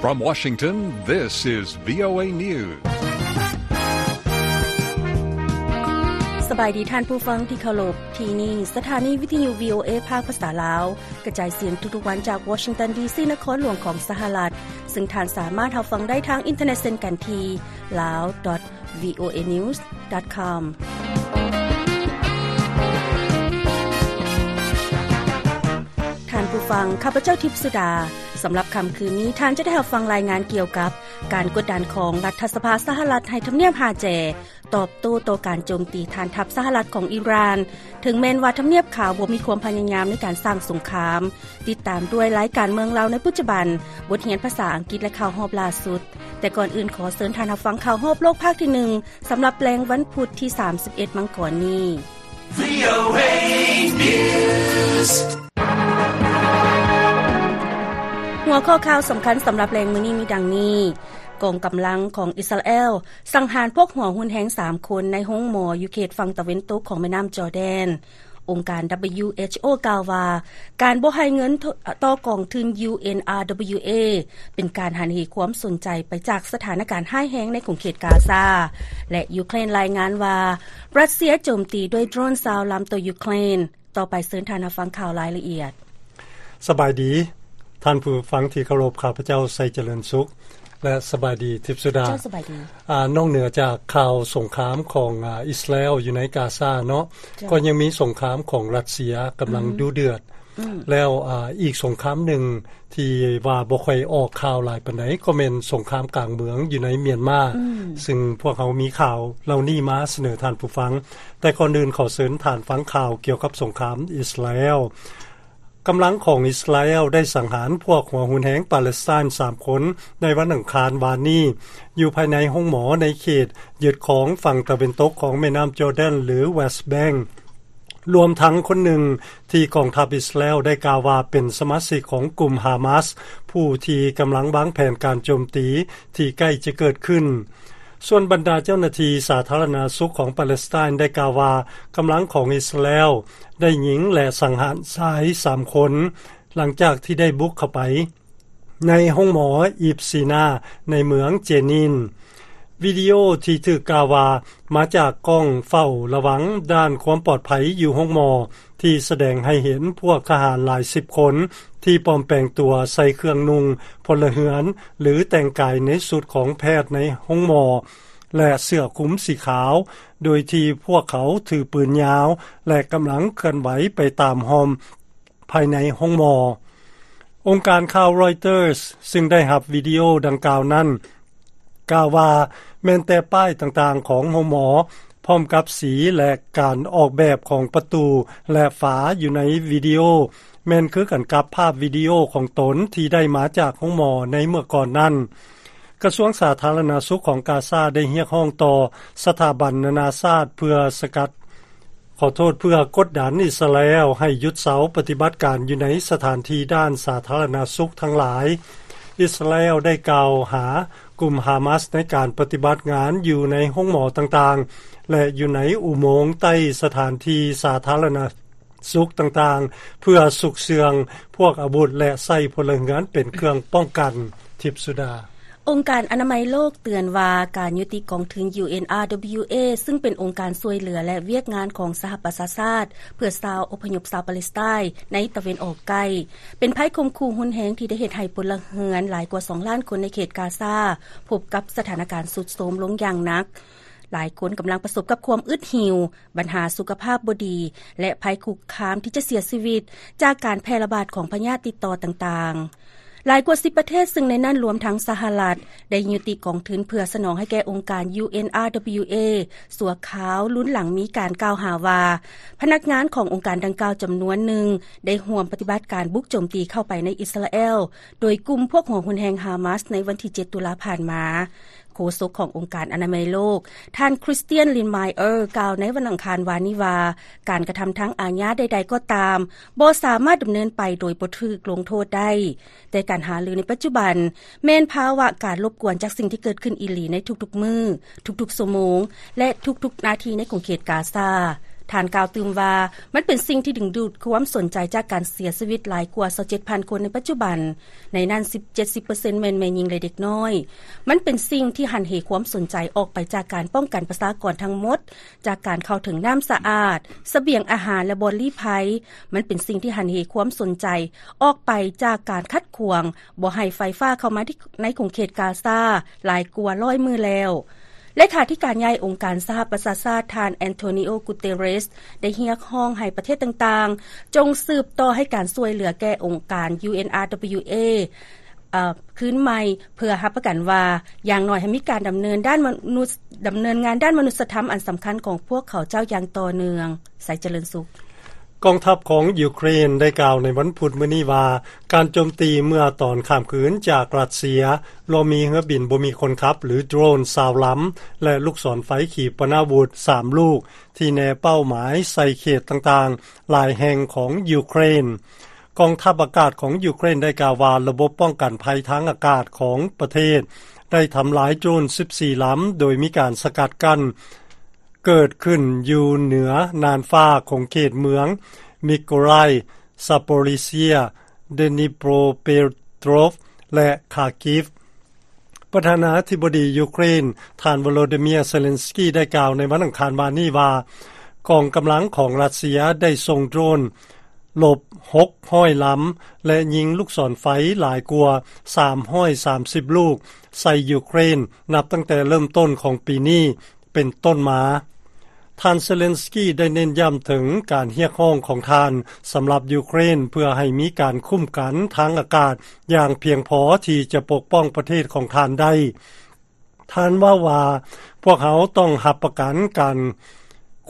From Washington, this is VOA News. ສະບາຍດີທ່ານຜູ້ຟັງທີ່ເຄົາລົບ, ທີ່ນີ້ສະຖານີວິທະຍຸ VOA ພາກພາສາລາວ ກະຈາຍສຽງທຸກໆວັນຈາກ Washington ດີ.ຊີ. ນະຄອນຫຼວງຂອງສະຫະລັດ, ເຊິ່ງທ່ານສາມາດຮັບຟັງໄດ້ທາງອິນເຕີເນັດເຊັ່ນກັນທີ່ lao dot voa news dot com. ທ່ານຜູ້ຟັງ, ຂ້າພະເຈົ້າ ທິບສຸດາ. ສຳລັບຄ່ຳຄືນນີ້, ທ່ານຈະໄດ້ຮັບຟັງລາຍງານກ່ຽວກັບການກົດດັນຂອງລັດຖະສະພາສະຫະລັດໃຫ້ທຳນຽບຮາແຈ ຕອບໂຕ້ຕໍ່ການໂຈມຕີຖານທັບສະຫະລັດຂອງອີຣານ, ເຖິງແມ່ນວ່າທຳນຽບຂາວບໍ່ມີຄວາມພະຍາຍາມໃນການສ້າງສົງຄາມ. ຕິດຕາມດ້ວຍລາຍການເມືອງລາວໃນປັດຈຸບັນ, ບົດຮຽນພາສາອັງກິດ ແລະ ຂ່າວຮອບລ່າສຸດ. ແຕ່ກ່ອນອື່ນ, ຂໍເຊີນທ່ານຮັບຟັງຂ່າວຮອບໂລກພາກທີໜຶ່ງ ສຳລັບແລງວັນພຸດທີສາມສິບເອັດ ມັງກອນນີ້. VOA News. ຫົວຂໍ້ຂ່າວສຳຄັນສຳລັບແລງມື້ນີ້ມີດັ່ງນີ້: ກອງກຳລັງຂອງອິດສະຣາແອລສັງຫານພວກຫົວຮຸນແຮງສາມຄົນໃນໂຮງໝໍຢູ່ເຂດຝັ່ງຕາເວັນຕົກຂອງແມ່ນ້ຳຈໍແດນ. ອົງການ WHO ກ່າວວ່າ ການບໍ່ໃຫ້ເງິນຕໍ່ກອງທຶນ UNRWA ເປັນການຫັນເຫຄວາມສົນໃຈໄປຈາກສະຖານະການຮ້າຍແຮງໃນຂົງເຂດກາຊາ. ແລະ ຢູເຄຣນລາຍງານວ່າ ຣັດເຊຍໂຈມຕີດ້ວຍໂດຣນຊາວລຳຕໍ່ຢູເຄຣນ. ຕໍ່ໄປເຊີນທ່ານຮັບຟັງຂ່າວລາຍລະອຽດ. ສະບາຍດີທ່ານຜູ້ຟັງທີ່ເຄົາລົບ, ຂ້າພະເຈົ້າ ໄຊຈະເລີນສຸກ ແລະ ສະບາຍດີ ທິບສຸດາ. ເຈົ້າ ສະບາຍດີ. ອາ, ນອກເໜືອຈາກຂ່າວສົງຄາມຂອງ, ອາ, ອິດສະຣາແອລຢູ່ໃນກາຊາເນາະ, ເຈົ້າ, ກໍຍັງມີສົງຄາມຂອງຣັດເຊຍກຳລັງ ອືມ ດຸເດືອດ. ອືມ ແລ້ວ, ອາ, ອີກສົງຄາມໜຶ່ງທີ່ວ່າບໍ່ຄ່ອຍອອກຂ່າວຫຼາຍປານໃດ ກໍແມ່ນສົງຄາມກາງເມືອງຢູ່ໃນມຽນມາ, ອືມ ຊຶ່ງພວກເຮົາມີຂ່າວເຫຼົ່ານີ້ມາສະເໜີທ່ານຜູ້ຟັງ. ແຕ່ກ່ອນອື່ນ ຂໍເຊີນທ່ານຟັງຂ່າວກ່ຽວກັບສົງຄາມອິດສະຣາແອລ. ກຳລັງຂອງອິດສະຣາແອລໄດ້ສັງຫານພວກຫົວຮຸນແຮງປາເລສໄຕນ໌ສາມຄົນໃນວັນອັງຄານວານນີ້ ຢູ່ພາຍໃນໂຮງໝໍໃນເຂດຍຶດຄອງຝັ່ງຕາເວັນຕົກຂອງແມ່ນ້ຳຈໍແດນ ຫຼື ເວສແບັງ, ລວມທັງຄົນໜຶ່ງທີ່ກອງທັບອິດສະຣາແອລໄດ້ກ່າວວ່າເປັນສະມາຊິກຂອງກຸ່ມຮາມາສ ຜູ້ທີ່ກຳລັງວາງແຜນການໂຈມຕີທີ່ໃກ້ຈະເກີດຂຶ້ນ. ສ່ວນບັນດາເຈົ້າໜ້າທີ່ສາທາລະນະສຸກຂອງປາເລສໄຕນ໌ໄດ້ກ່າວວ່າ ກຳລັງຂອງອິດສະຣາແອລໄດ້ຍິງ ແລະ ສັງຫານຊາຍສາມຄົນ ຫຼັງຈາກທີ່ໄດ້ບຸກເຂົ້າໄປໃນໂຮງໝໍອີບຊີນາໃນເມືອງເຈນິນ. ວິດີໂອທີ່ຖືກກ່າວວ່າມາຈາກກ້ອງເຝົ້າລະວັງດ້ານຄວາມປອດໄພຢູ່ໂຮງໝໍ ທີ່ສະແດງໃຫ້ເຫັນພວກທະຫານຫຼາຍສິບຄົນທີ່ປອມແປງຕົວໃສ່ເຄື່ອງນຸ່ງພົນລະເຮືອນ ຫຼື ແຕ່ງກາຍໃນຊຸດຂອງແພດໃນໂຮງໝໍ ແລະ ເສື້ອຄຸມສີຂາວ, ໂດຍທີ່ພວກເຂົາຖືປືນຍາວ ແລະ ກຳລັງເຄື່ອນໄຫວໄປຕາມຮ່ອມພາຍໃນໂຮງໝໍ. ອົງການຂ່າວ Reuters ຊຶ່ງໄດ້ຮັບວິດີໂອດັ່ງກ່າວນັ້ນ ກ່າວວ່າແມ່ນແຕ່ປ້າຍຕ່າງໆຂອງໂຮງໝໍ ພ້ອມກັບສີ ແລະ ການອອກແບບຂອງປະຕູ ແລະ ຝາຢູ່ໃນວິດີໂອ ແມ່ນຄືກັນກັບພາບວິດີໂອຂອງຕົນທີ່ໄດ້ມາຈາກໂຮງໝໍໃນເມື່ອກ່ອນນັ້ນ. ກະຊວງສາທາລະນະສຸກຂອງກາຊາໄດ້ຮຽກຮ້ອງຕໍ່ສະຖາບັນນານາຊາດເພື່ອສະກັດ ຂໍໂທດ, ເພື່ອກົດດັນອິດສະຣາແອລໃຫ້ຢຸດເຊົາປະຕິບັດການຢູ່ໃນສະຖານທີ່ດ້ານສາທາລະນະສຸກທັງຫຼາຍ. ອິດສະຣາແອລໄດ້ກ່າວຫາກຸ່ມຮາມາສໃນການປະຕິບັດງານຢູ່ໃນໂຮງໝໍຕ່າງໆ ແລະ ຢູ່ໃນອຸໂມງໃຕ້ສະຖານທີ່ສາທາລະນະສຸກຕ່າງໆ ເພື່ອຊຸກເຊື່ອງພວກອາວຸດ ແລະ ໃຊ້ພົນລະເຮືອນເປັນເຄື່ອງປ້ອງກັນ. ທິບສຸດາ. ອົງການອະນາໄມໂລກເຕືອນວ່າ ການຍຸຕິກອງທຶນ UNRWA ຊຶ່ງເປັນອົງການຊ່ວຍເຫຼືອ ແລະ ວຽກງານຂອງສະຫະປະຊາຊາດ ເພື່ອຊາວອົບພະຍົບຊາວປາເລສໄຕນ໌ໃນຕາເວັນອອກໃກ້ ເປັນໄພຂົ່ມຂູ່ຮຸນແຮງທີ່ໄດ້ເຮັດໃຫ້ພົນລະເຮືອນຫຼາຍກວ່າສອງລ້ານຄົນໃນເຂດກາຊາ ພົບກັບສະຖານະການຊຸດໂຊມລົງຢ່າງໜັກ. ຫຼາຍຄົນກຳລັງປະສົບກັບຄວາມອຶດຫິວ, ບັນຫາສຸຂະພາບບໍ່ດີ ແລະ ໄພຄຸກຄາມທີ່ຈະເສຍຊີວິດຈາກການແຜ່ລະບາດຂອງພະຍາດຕິດຕໍ່ຕ່າງໆ. ຫຼາຍກວ່າສິບປະເທດ, ຊຶ່ງໃນນັ້ນລວມທັງສະຫະລັດ, ໄດ້ຍຸຕິກອງທຶນເພື່ອສະໜອງໃຫ້ແກ່ອົງການ UNRWA ຊົ່ວຄາວ, ລຸນຫຼັງມີການກ່າວຫາວ່າ ພະນັກງານຂອງອົງການດັ່ງກ່າວຈຳນວນໜຶ່ງ ໄດ້ຮ່ວມປະຕິບັດການບຸກໂຈມຕີເຂົ້າໄປໃນອິດສະຣາແອລ ໂດຍກຸ່ມພວກຫົວຮຸນແຮງຮາມາສໃນວັນທີເຈັດ ຕຸລາຜ່ານມາ. ໂຄສົກຂອງອົງການອະນາໄມໂລກ, ທ່ານ Christian Lindmeier ກ່າວໃນວັນອັງຄານວານນີ້ວ່າ ການກະທຳທາງອາຍາໃດໆກໍຕາມ ບໍ່ສາມາດດຳເນີນໄປໂດຍບໍ່ຖືກລົງໂທດໄດ້, ແຕ່ການຫາລືໃນປັດຈຸບັນ ແມ່ນພາວະການລົບກວນຈາກສິ່ງທີ່ເກີດຂຶ້ນອີ່ຫຼີໃນທຸກໆມື້, ທຸກໆຊົ່ວໂມງ ແລະ ທຸກໆນາທີໃນຂົງເຂດກາຊາ. ທ່ານກ່າວຕື່ມວ່າ ມັນເປັນສິ່ງທີ່ດຶງດູດຄວາມສົນໃຈຈາກການເສຍຊີວິດຫຼາຍກວ່າ ຊາວເຈັດພັນຄົນໃນປັດຈຸບັນ, ໃນນັ້ນສິບ ເຈັດສິບເປີເຊັນແມ່ນແມ່ຍິງ ແລະ ເດັກນ້ອຍ. ມັນເປັນສິ່ງທີ່ຫັນເຫຄວາມສົນໃຈອອກໄປຈາກການປ້ອງກັນປະຊາກອນທັງໝົດ, ຈາກການເຂົ້າເຖິງນ້ຳສະອາດ, ສະບຽງອາຫານ ແລະ ບ່ອນລີ້ໄພ. ມັນເປັນສິ່ງທີ່ຫັນເຫຄວາມສົນໃຈອອກໄປຈາກການຂັດຂວາງບໍ່ໃຫ້ໄຟຟ້າເຂົ້າມາທີ່ ໃນຂົງເຂດກາຊາຫຼາຍກວ່າຮ້ອຍມື້ແລ້ວ. ເລຂາທິການໃຫຍ່ອົງການສະຫະປະຊາຊາດ ທ່ານ ແອນໂທນິໂອ ກູເຕເຣສ ໄດ້ຮຽກຮ້ອງໃຫ້ປະເທດຕ່າງໆ ຈົ່ງສືບຕໍ່ໃຫ້ການຊ່ວຍເຫຼືອແກ່ອົງການ ຢູເອັນອາດັບເບິນຢູເອ ເອີ ຄືນໃໝ່ ເພື່ອຮັບປະກັນວ່າ ຢ່າງໜ້ອຍໃຫ້ມີການດຳເນີນດ້ານມະນຸດ ດຳເນີນງານດ້ານມະນຸດສະທຳອັນສຳຄັນຂອງພວກເຂົາເຈົ້າຢ່າງຕໍ່ເນື່ອງ. ໄຊຈະເລີນສຸກ. ກອງທັບຂອງຢູເຄຣນໄດ້ກ່າວໃນວັນພຸດມື້ນີ້ວ່າ ການໂຈມຕີເມື່ອຕອນຂ້າມຄືນຈາກຣັດເຊຍ ລວມມີເຮືອບິນບໍ່ມີຄົນຂັບ ຫຼື ໂດຣນ ຊາວລຳ ແລະ ລູກສອນໄຟຂີປະນາວຸດ ສາມລູກ ທີ່ແນເປົ້າໝາຍໃສ່ເຂດຕ່າງໆ ຫຼາຍແຫ່ງຂອງຢູເຄຣນ. ກອງທັບອາກາດຂອງຢູເຄຣນໄດ້ກ່າວວ່າ ລະບົບປ້ອງກັນໄພທາງອາກາດຂອງປະເທດ ໄດ້ທຳລາຍໂດຣນສິບສີ່ລຳ ໂດຍມີການສະກັດກັ້ນ ເກີດຂຶ້ນຢູ່ເໜືອນ່ານຟ້າຂອງເຂດເມືອງມິໂກຣາຍ, ຊາໂປລິເຊຍ, ເດນິໂປຣເປໂຕຣບ ແລະ ຄາກິຟ. ປະທານາທິບໍດີຢູເຄຣນ ທ່ານ ໂວໂລດີເມຍ ເຊເລັນສກີ ໄດ້ກ່າວໃນວັນອັງຄານວານນີ້ວ່າ ກອງກຳລັງຂອງຣັດເຊຍໄດ້ສົ່ງໂດຣນລົບຫົກຮ້ອຍລຳ ແລະ ຍິງລູກສອນໄຟຫຼາຍກວ່າສາມຮ້ອຍສາມສິບລູກໃສ່ຢູເຄຣນ ນັບຕັ້ງແຕ່ເລີ່ມຕົ້ນຂອງປີນີ້ ເປັນຕົ້ນມາ. ທ່ານເຊເລັນສກີໄດ້ເນັ້ນຢ້ຳເຖິງການຮຽກຮ້ອງຂອງທ່ານສຳລັບຢູເຄຣນ ເພື່ອໃຫ້ມີການຄຸ້ມກັນທາງອາກາດຢ່າງພຽງພໍທີ່ຈະປົກປ້ອງປະເທດຂອງທ່ານໄດ້. ທ່ານເວົ້າວ່າ ພວກເຮົາຕ້ອງຮັບປະກັນການ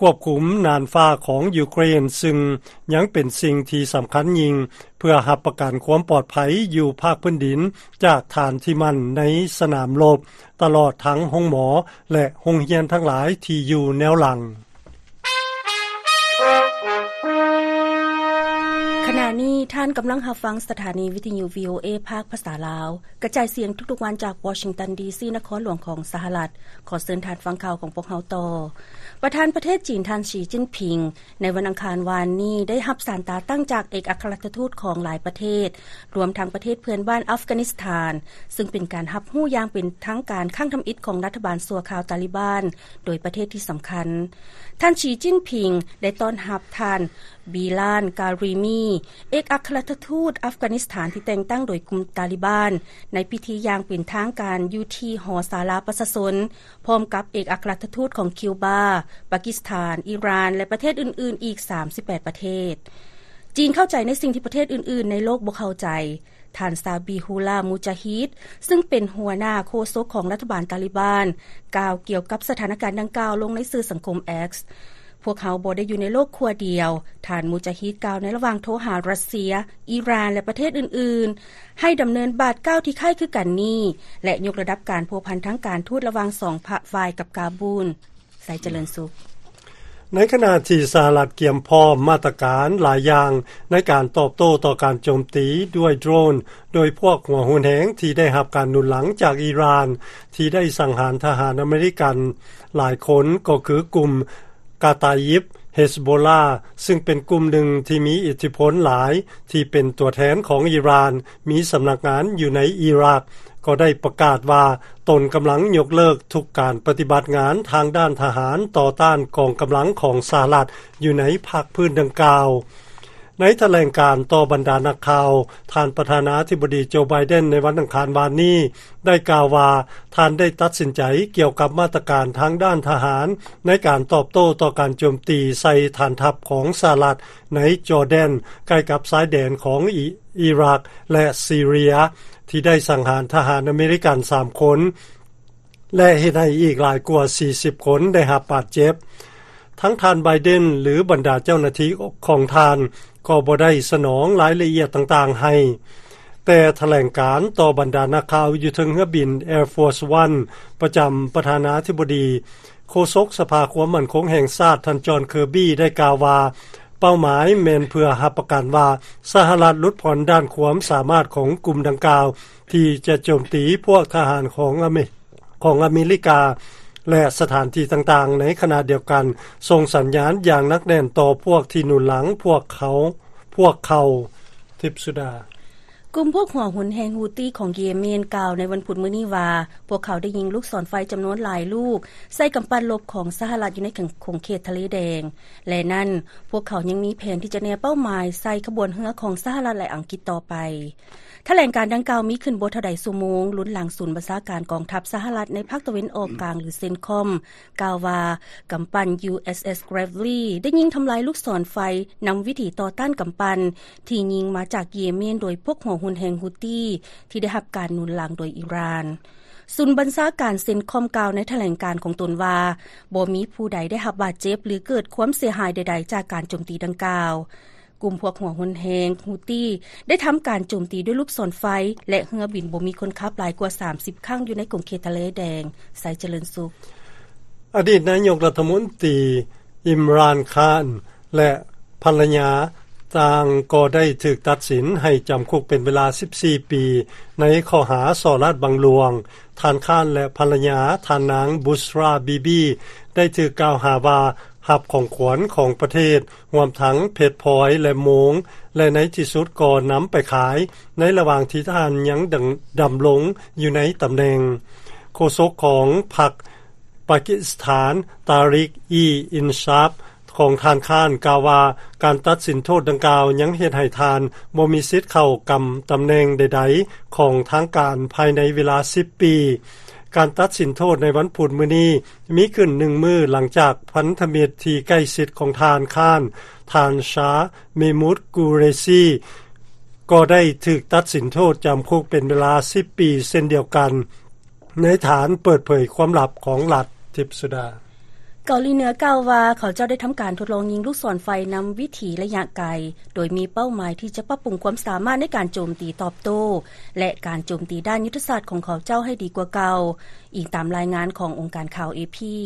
ຄວບຄຸມນ່ານຟ້າຂອງຢູເຄຣນ ຊຶ່ງຍັງເປັນສິ່ງທີ່ສຳຄັນຍິ່ງ ເພື່ອຮັບປະກັນຄວາມປອດໄພຢູ່ພາກພື້ນດິນ ຈາກຖານທີ່ໝັ້ນໃນສະໜາມລົບ ຕະຫຼອດທັງໂຮງໝໍ ແລະ ໂຮງຮຽນທັງຫຼາຍທີ່ຢູ່ແນວຫຼັງ. ຂະນະນີ້ທ່ານກຳລັງຮັບຟັງສະຖານີວິທະຍຸ ວີໂອເອ ພາກພາສາລາວ ກະຈາຍສຽງທຸກໆວັນຈາກວໍຊິງຕັນ ດີຊີ ນະຄອນຫຼວງຂອງສະຫະລັດ. ຂໍເຊີນທ່ານຟັງຂ່າວຂອງພວກເຮົາຕໍ່. ປະທານປະເທດຈີນ ທ່ານ ສີ ຈິ້ນຜິງ ໃນວັນອັງຄານວານນີ້ ໄດ້ຮັບສານຕາຕັ້ງຈາກເອກອັກຄະລັດຖະທູດຂອງຫຼາຍປະເທດ, ລວມທັງປະເທດເພື່ອນບ້ານອັຟການິສຖານ, ຊຶ່ງເປັນການຮັບຮູ້ຢ່າງເປັນທາງການຄັ້ງທຳອິດຂອງລັດຖະບານຊົ່ວຄາວຕາລິບານ ໂດຍປະເທດທີ່ສຳຄັນ. ທ່ານ ສີ ຈິ້ນຜິງ ໄດ້ຕ້ອນຮັບທ່ານ ບີລານ ກາຣີມີ ເອກອັກຄະລັດຖະທູດອັຟການິສຖານທີ່ແຕ່ງຕັ້ງໂດຍກຸ່ມຕາລິບານ ໃນພິທີຢ່າງເປັນທາງການຢູ່ທີ່ຫໍສາລາປະຊາຊົນ ພ້ອມກັບເອກອັກຄະລັດຖະທູດຂອງຄິວບາ, ປາກິສຖານ, ອີຣານ ແລະ ປະເທດອື່ນໆອີກສາມສິບແປດປະເທດ. ຈີນເຂົ້າໃຈໃນສິ່ງທີ່ປະເທດອື່ນໆໃນໂລກບໍ່ເຂົ້າໃຈ. ທ່ານ ຊາບີຮູລາ ມູຈາຮີດ ຊຶ່ງເປັນຫົວໜ້າໂຄສົກຂອງລັດຖະບານຕາລິບານ ກ່າວກ່ຽວກັບສະຖານະການດັ່ງກ່າວລົງໃນສື່ສັງຄົມ X. ພວກເຮົາບໍ່ໄດ້ຢູ່ໃນໂລກຂົ້ວດຽວ, ທ່ານ ມູຈາຮີດ ກ່າວໃນລະຫວ່າງໂທຫາຣັດເຊຍ, ອີຣານ ແລະ ປະເທດອື່ນໆ ໃຫ້ດຳເນີນບາດກ້າວທີ່ຄ້າຍຄືກັນນີ້ ແລະ ຍົກລະດັບການພົວພັນທາງການທູດລະຫວ່າງສອງພາກຝ່າຍກັບກາບູນ. ໄຊຈະເລີນສຸກ. ໃນຂະນະທີ່ສະຫະລັດກຽມພ້ອມມາດຕະການຫຼາຍຢ່າງໃນການຕອບໂຕ້ຕໍ່ການໂຈມຕີດ້ວຍໂດຣນໂດຍພວກຫົວຮຸນແຮງທີ່ໄດ້ຮັບການໜູນຫຼັງຈາກອີຣານ ທີ່ໄດ້ສັງຫານທະຫານອາເມລິກັນຫຼາຍຄົນ ກໍຄືກຸ່ມກາຕາຢິບ ເຮສໂບລາ ຊຶ່ງເປັນກຸ່ມໜຶ່ງທີ່ມີອິດທິພົນຫຼາຍ ທີ່ເປັນຕົວແທນຂອງອີຣານ ມີສຳນັກງານຢູ່ໃນອີຣັກ ກໍໄດ້ປະກາດວ່າຕົນກຳລັງຍົກເລີກທຸກການປະຕິບັດງານທາງດ້ານທະຫານຕໍ່ຕ້ານກອງກຳລັງຂອງສະຫະລັດຢູ່ໃນພາກພື້ນດັ່ງກ່າວ. ໃນຖະແຫຼງການຕໍ່ບັນດານັກຂ່າວ, ທ່ານປະທານາທິບໍດີ ໂຈ ໄບເດັນ ໃນວັນອັງຄານວານນີ້ ໄດ້ກ່າວວ່າ ທ່ານໄດ້ຕັດສິນໃຈກ່ຽວກັບມາດຕະການທາງດ້ານທະຫານ ໃນການຕອບໂຕ້ຕໍ່ການໂຈມຕີໃສ່ຖານທັບຂອງສະຫະລັດໃນຈໍແດນ ໃກ້ກັບຊາຍແດນຂອງອີ ອີຣັກ ແລະ ຊີເຣຍ ທີ່ໄດ້ສັງຫານທະຫານອາເມລິກັນສາມຄົນ ແລະ ເຮັດໃຫ້ອີກຫຼາຍກວ່າສີ່ສິບຄົນໄດ້ຮັບບາດເຈັບ. ທັງທ່ານ ໄບເດັນ ຫຼື ບັນດາເຈົ້າໜ້າທີ່ຂອງທ່ານ ກໍບໍ່ໄດ້ສະໜອງລາຍລະອຽດຕ່າງໆໃຫ້. ແຕ່ຖະແຫຼງການຕໍ່ບັນດານັກຂ່າວຢູ່ເທິງເຮືອບິນ Air Force One ປະຈຳປະທານາທິບໍດີ, ໂຄສົກສະພາຄວາມໝັ້ນຄົງແຫ່ງຊາດ ທ່ານ ຈອນ ເຄີບີ ໄດ້ກ່າວວ່າ ເປົ້າໝາຍແມ່ນເພື່ອຮັບປະກັນວ່າ ສະຫະລັດຫຼຸດຜ່ອນດ້ານຄວາມສາມາດຂອງກຸ່ມດັ່ງກ່າວ ທີ່ຈະໂຈມຕີພວກທະຫານຂອງອາເມ ຂອງອາເມລິກາ ແລະ ສະຖານທີ່ຕ່າງໆ, ໃນຂະນະດຽວກັນ ສົ່ງສັນຍານຢ່າງໜັກແໜ້ນຕໍ່ພວກທີ່ໜູນຫຼັງພວກເຂົາ, ພວກເຂົາ. ທິບສຸດາ. ກຸ່ມພວກຫົວຮຸນແຮງ Houthi ຂອງເຢເມນ ກ່າວໃນວັນພຸດມື້ນີ້ວ່າ ພວກເຂົາໄດ້ຍິງລູກສອນໄຟຈຳນວນຫຼາຍລູກ ໃສ່ກຳປັ່ນລົບຂອງສະຫະລັດຢູ່ໃນຂົງເຂດທະເລແດງ ແລະ ນັ້ນ ພວກເຂົາຍັງມີແຜນທີ່ຈະແນເປົ້າໝາຍໃສ່ຂະບວນເຮືອຂອງສະຫະລັດ ແລະ ອັງກິດຕໍ່ໄປ. ຖະແຫຼງການດັ່ງກ່າວມີຂຶ້ນບໍ່ເທົ່າໃດຊົ່ວໂມງ ລຸນຫຼັງສູນບັນຊາການກອງທັບສະຫະລັດໃນພາກຕາເວັນອອກກາງ ຫຼື CENTCOM ກ່າວວ່າ ກຳປັ່ນ USS Gravely ໄດ້ຍິງທຳລາຍລູກສອນໄຟນຳວິຖີຕໍ່ຕ້ານກຳປັ່ນ ທີ່ຍິງມາຈາກເຢເມນໂດຍພວກຫົວຮຸນແຮງ Houthi ທີ່ໄດ້ຮັບການໜູນຫຼັງໂດຍອີຣານ. ສູນບັນຊາການ CENTCOM ກ່າວໃນຖະແຫຼງການຂອງຕົນວ່າ ບໍ່ມີຜູ້ໃດໄດ້ຮັບບາດເຈັບ ຫຼື ເກີດຄວາມເສຍຫາຍໃດໆ ຈາກການໂຈມຕີດັ່ງກ່າວ. ກຸ່ມພວກຫົວຮຸນແຮງ Houthi ໄດ້ທຳການໂຈມຕີດ້ວຍລູກສອນໄຟ ແລະ ເຮືອບິນບໍ່ມີຄົນຂັບຫຼາຍກວ່າສາມສິບຄັ້ງຢູ່ໃນຂົງເຂດທະເລແດງ. ໄຊຈະເລີນສຸກ. ອະດີດນາຍົກລັດຖະມົນຕີ ອິມຣານ ຄານ ແລະ ພັນລະຍາ ຕ່າງກໍໄດ້ຖືກຕັດສິນໃຫ້ຈຳຄຸກເປັນເວລາສິບສີ່ປີ ໃນຂໍ້ຫາສໍ້ລາດບັງຫຼວງ. ທ່ານ ຄານ ແລະ ພັນລະຍາ ທ່ານນາງ ບຸສຣາ ບີບີ ໄດ້ຖືກກ່າວຫາວ່າ ຮັບຂອງຂວັນຂອງປະເທດ ຮວມທັງເພັດພອຍ ແລະ ໂມງ ແລະ ໃນທີ່ສຸດກໍນຳໄປຂາຍ ໃນລະຫວ່າງທີ່ທ່ານຍັງດຳ, ດຳລົງຢູ່ໃນຕຳແໜ່ງ. ໂຄສົກຂອງພັກປາກິສຖານ ຕາຣິກ ອີ ອິນຊາບ ຂອງທ່ານ ຄານ ກ່າວວ່າ ການຕັດສິນໂທດດັ່ງກ່າວຍັງເຮັດໃຫ້ທ່ານບໍ່ມີສິດເຂົ້າກຳຕຳແໜ່ງໃດໆຂອງທາງການພາຍໃນເວລາສິບປີ. ການຕັດສິນໂທດໃນວັນພຸດມື້ນີ້ ມີຂຶ້ນໜຶ່ງມື້ຫຼັງຈາກພັນທະມິດທີ່ໃກ້ຊິດຂອງທ່ານ ຄານ ທ່ານ ຊາ ເມມຸດ ກູເຣຊີ ກໍໄດ້ຖືກຕັດສິນໂທດຈຳຄຸກເປັນເວລາສິບປີເຊັ່ນດຽວກັນ ໃນຖານເປີດເຜີຍຄວາມລັບຂອງລັດ. ທິບສຸດາ. ເກົາຫຼີເໜືອກ່າວວ່າ ເຂົາເຈົ້າໄດ້ທຳການທົດລອງຍິງລູກສອນໄຟນຳວິຖີໄລຍະໄກ ໂດຍມີເປົ້າໝາຍທີ່ຈະປັບປຸງຄວາມສາມາດໃນການໂຈມຕີຕອບໂຕ້ ແລະ ການໂຈມຕີດ້ານຍຸດທະສາດຂອງເຂົາເຈົ້າໃຫ້ດີກວ່າເກົ່າ. ອີງຕາມລາຍງານຂອງອົງການຂ່າວ ເອພີ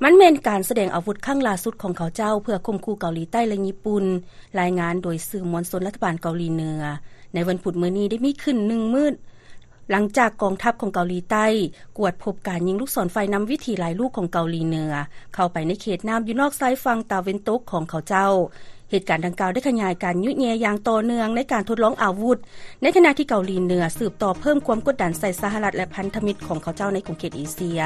ມັນແມ່ນການສະແດງອາວຸດຄັ້ງລ່າສຸດຂອງເຂົາເຈົ້າ ເພື່ອຂົ່ມຂູ່ເກົາຫຼີໃຕ້ ແລະ ຍີ່ປຸ່ນ, ລາຍງານໂດຍສື່ມວນຊົນລັດຖະບານເກົາຫຼີເໜືອ. ໃນວັນພຸດມື້ນີ້ໄດ້ມີຂຶ້ນໜຶ່ງມື້ ຫຼັງຈາກກອງທັບຂອງເກົາຫຼີໃຕ້ກວດພົບການຍິງລູກສອນໄຟນຳວິຖີຫຼາຍລູກຂອງເກົາຫຼີເໜືອ ເຂົ້າໄປໃນເຂດນ້ຳຢູ່ນອກຊາຍຝັ່ງຕາເວັນຕົກຂອງເຂົາເຈົ້າ. ເຫດການດັ່ງກ່າວໄດ້ຂະຫຍາຍການຍຸແຍ່ຢ່າງຕໍ່ເນື່ອງໃນການທົດລອງອາວຸດ ໃນຂະນະທີ່ເກົາຫຼີເໜືອສືບຕໍ່ເພີ່ມຄວາມກົດດັນໃສ່ສະຫະລັດ ແລະ ພັນທະມິດຂອງເຂົາເຈົ້າໃນຂົງເຂດເອເຊຍ.